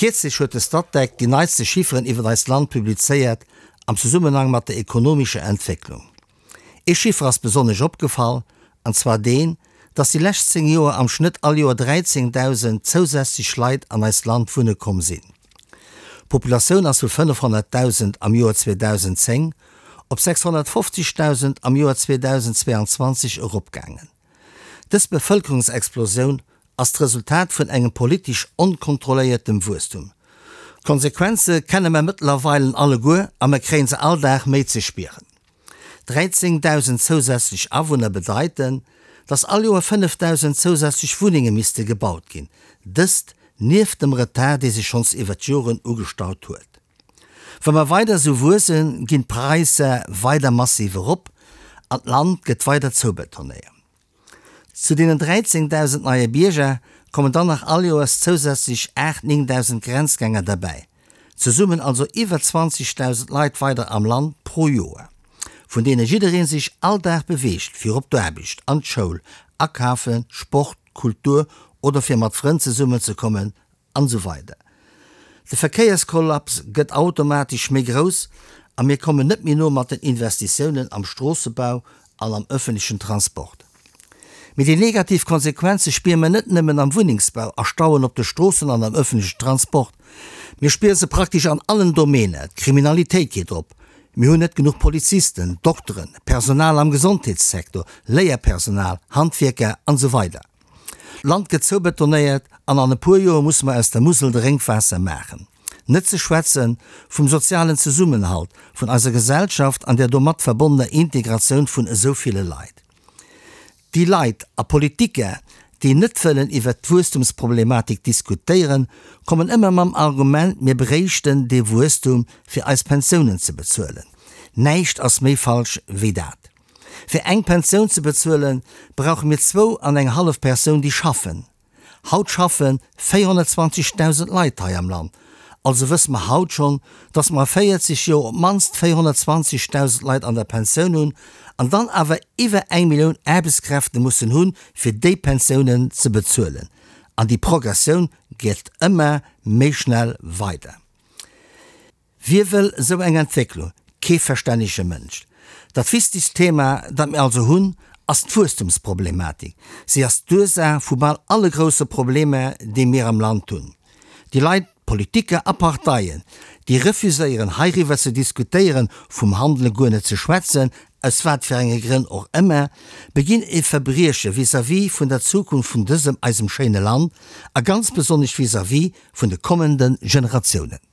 Kierzlech huet de Statec déi neitste Chifferen iwwer eist Land publizéiert am Zesummenhang mat der ekonomescher Entwécklung. Ee Chiffer ass besonnesch opgefall, an zwar deen, dass déi lescht 10 Joer am Schnëtt all Joer 13.000 zousätzlech Leit an eist Land wunne komm sinn. D'Populatioun ass vu 500.000 am Joer 2010 op 650.000 am Joer 2022 eropgaangen. Dës Bevëlkerungsexplosioun ass d'Resultat vun engem politesch onkontrolléiertem Wuesstum. D'Konsequenze kenne mer mëttlerweilen alleguer a mer kréien se all Dag méi ze spieren. 13.000 zousätzlech Awunner bedeiten, dass all Joer 5.000 zousätzlech Wunnenge misste gebaut ginn, dëst nieft dem Retard, dee sech schonns iwwert d'Joren ugestaut huet. Wa mer weider esou wuessen, ginn d'Praisser weider massiv erop an d'Land gëtt weider zoubetonéiert. Zu deenen 13.000 neie Bierger kommen dann nach all Joers zousätzlech 8, 9.000 Grenzgänger derbäi. Zesummen also iwwer 20.000 Leit weider am Land pro Joer, vun deene jidderee sech all Dag beweegt, fir op d'Aarbecht, an d'Schoul, akafen, Sport, Kultur oder fir mat Frënn zesummenzekommen An esou weider. De Verkéierskollaps gëtt automatesch méi grouss a mir kommen net méi no mat den Investitiounen am Stroossebau an am öffentlechen Transport. Mee déi negativ Konsequenze spiere mer net nëmmen am Wunnengsbau, a Stauen op de Stroossen an am öffentlechen Transport. Mir spiere se praktesch an allen Domäner. D'Kriminalitéit geet op, mir hunn net genuch Polizisten, Dokteren, Personal am Gesondheetssektor, Léierpersonal, Handwierker an esou weider. D'Land gëtt zoubetonéiert an an e puer Joer musse mer aus der Musel Drénkwaasser maachen. Net ze schwätze vum sozialen Zesummenhalt vun eiser Gesellschaft an der domat verbonnener Integratioun vun esou ville Leit. Déi Leit a Politiker, déi net wëllen iwwert d'Wuesstumsproblematik diskutéieren, kommen ëmmer mam Argument, mir bréichten dee Wuesstum fir eis Pensiounen ze bezuelen. Näischt ass méi falsch wéi dat. Fir eng Pensioun ze bezuelen, brauche mir zwou an eng hallef Persoun, déi schaffen. Haut schaffe 420.000 Leit hei am Land. Also wësse mer haut schonn, dass mer a 40 Joer op d'mannst 420.000 Leit an der Pensioun hunn an dann awer iwwer eng Millioun Aarbechtskräfte mussen hunn, fir déi Pensiounen ze bezuelen. An déi Progressioun geet ëmmer méi schnell weider. Wie wëll esou eng Entwécklung? Kee verstännege Mënsch. Dat wichtegst Thema, dat mir also hunn, ass d'Wuesstumsproblematik. Si ass d'Ursaach vu bal alle grousse Problemer, déi mir am Land hunn. Déi Leit, Politiker a Parteien, déi refuséieren, heiriwwer ze diskutéieren, vum Handele guer net ze schwätzen, aus wat fir enge Grënn och ëmmer, beginn e Verbrieche vis-à-vis vun der Zukunft vun dësem eisem schéine Land a ganz besonnesch vis-à-vis vun de kommende Generatiounen.